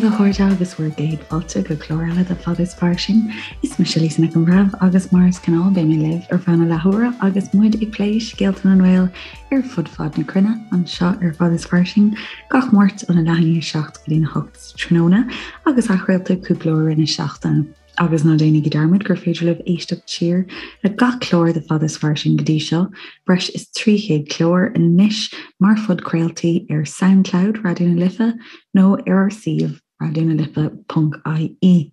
daoibh a chairde agus bhur gcéad fáilte go clár eile de Fada is Fairsing. Is mise Lisa Nic an Bhreithimh agus mar is gnáth beidh mé libh ar feadh na leathuaire agus muid ag plé scéalta na nGael ar fud fad na cruinne anseo ar Fada is Fairsing gach Máirt óna leath i ndiaidh 7 go dtí 8 tráthnóna agus athchraolta cúpla uair i rith na seachtaine. Agus ná déanaigí dearmad gur féidir libh éisteacht siar le gach clár de Fada is Fairsing go dtí seo, breis is 300 clár anois, mar phodchraoltaí ar Soundcloud Raidió na Life nó ar ár suíomh raidionalife.ie.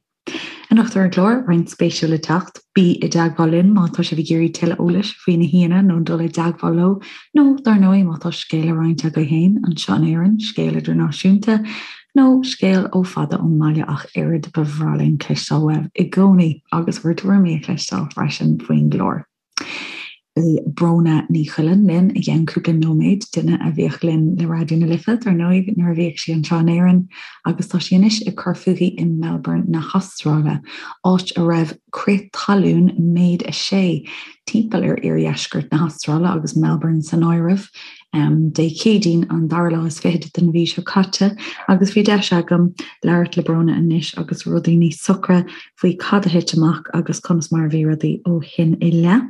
Anocht ar an gclár, roinnt spéisiúil le teacht, bí i dteagmháil linn má tá sibh ag iarraidh tuilleadh eolais faoi na haíonna nó dul i dteagmháil leo, nó dar ndóigh má tá scéal le roinnt agaibh féin anseo in Éirinn, scéal idirnáisiúnta, nó scéal ó fada ón mbaile ach oiread, ba bhreá linn cloisteáil uaibh i gcónaí agus bhur dtuairimí a chloisteáil freisin faoin gclár. Beidh Bróna Ní Choileáin linn i gceann cúpla nóiméad, duine a bhíodh linn le Raidió na Life, dar ndóigh, nuair a bhíodh sí anseo in Éirinn agus tá sí anois ag cur fúithi i Melbourne na hAstráile, áit a raibh crith talún méid 6 timpeall ar iardheisceart na hAstráile agus Melbourne san áireamh. Dé Céadaoin an dara lá is fichead den mhí seo caite agus bhí deis agam labhairt le Bróna anois agus rudaí níos socra faoi cad a thit amach agus conas mar a bhí rudaí ó shin i leith.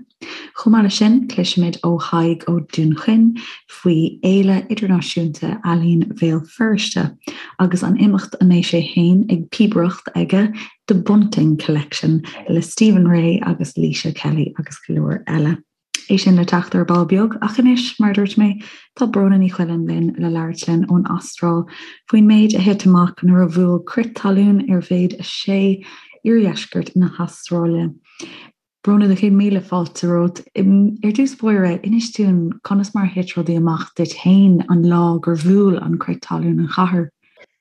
Chomh maith leis sin, cloisfimid ó Thadhg Ó Dúnchaoin faoi Fhéile Idirnáisiúnta Ealaíon Bhéal Feirste agus an imeacht a mbeidh sé féin ag píobaireacht aige, The Bunting Collection le Stephen Rea agus Laoise Kelly agus go leor eile. É sin le teacht ar ball beag, ach anois, mar a dúirt mé, tá Bróna Ní Choileáin linn le labhairt linn ón Astráil faoin méid a thit amach nuair a bhuail crith talún ar mhéid 6 iardheisceart na hAstráile. Bróna, do chéad míle fáilte romhat. Ar dtús báire, inis dúinn conas mar a thit rudaí amach duit féin an lá gur bhuail an crith talún an chathair.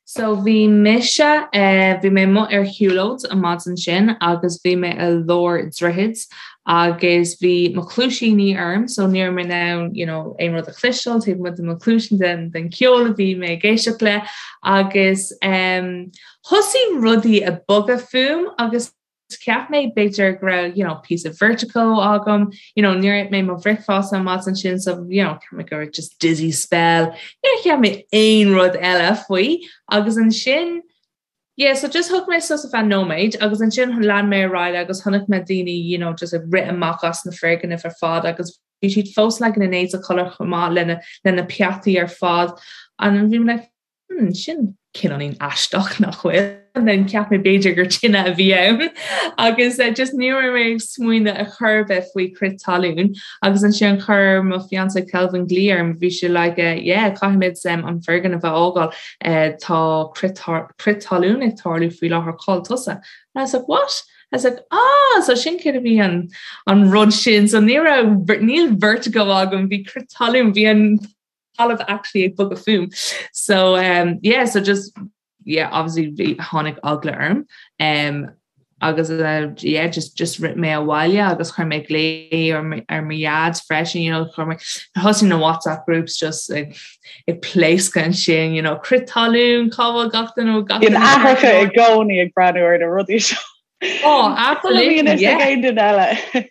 So bhí mise, bhí mé amuigh ar shiúlóid an maidin sin agus bhí mé i lár droichid agus bhí mo chluaisíní orm so ní raibh mé in ann you know aon rud a chloisteáil taobh amuigh de mo chluaisín den den ceol a bhí mé ag éisteacht le agus em thosaigh rudaí ag bogadh fúm agus Cheap mé b'fhéidir go raibh you know píosa vertigo agam, you know níor ith mé mo bhricfeasta an maidin sin so you know cheap mé go raibh just dizzy spell, níor cheap mé aon rud eile faoi agus ansin yeah so just thug mé sos ar feadh nóiméid agus ansin lean mé ar aghaidh agus chonaic mé daoine you know just ag rith amach as na foirgnimh ar fad agus bhí siad fós like ina n-éide codladh chomh maith lena lena peataí ar fad and bhí mé like Hmm, sin cineáilín aisteach nach bhfuil. And then cheap mé b'fhéidir gur tine a bhí ann agus uh, just ní raibh mé ag smaoineamh ar chor ar bith faoi crith talún agus ansin chuir mo fiancé Kelvin glaoch orm bhí sé like uh, yeah caithfimid um, an foirgneamh a fhágáil uh, tá crith talún ag tarlú faoi láthair cá bhfuil tusa. And I was like what? I was like ah so sin céard a bhí an an rud sin so ní raibh níl vertigo agam bhí crith talún bhí an talamh actually ag bogadh fúm. So um, yeah, so just yeah, obviously bhí tháinig eagla orm. Um, agus uh, yeah, just just rith mé abhaile agus chuir mé glao ar ar mo dhaid freisin, you know, chuir mé thosaigh na WhatsApp groups just ag ag pléascadh ansin, you know, crith talún, cá bhfuil gach duine gach duine. Aithreacha i gcónaí ag breathnú ar na rudaí seo. Oh, absolutely. Yeah. Aon duine eile.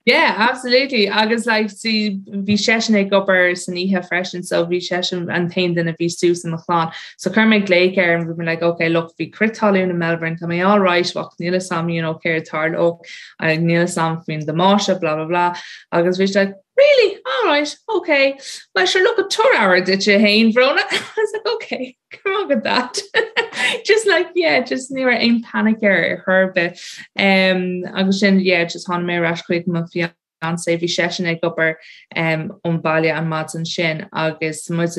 Yeah, absolutely. Agus like, see, bhí seisean ag obair san oíche freisin, so bhí seisean an t-aon duine a bhí suas i mo chlann. So chuir mé glaoch air and bhí mé like, okay, look, bhí crith talún in Melbourne, tá mé all right, ach níl a fhios agam, you know, céard a tharlódh, níl a fhios agam faoin damáiste, blah, blah, blah. Agus bhí sé like, really? All right, okay. Well, sure, look, tabhair aire duit féin, Bhróna. I was like, okay. Go raibh maith agat Dad. Just like yeah, just ní raibh aon panic air ar chor ar bith. Um, agus sin yeah, just tháinig mé ar ais chuig mo fiancé, bhí seisean ag obair um, ón baile an maidin sin agus muid.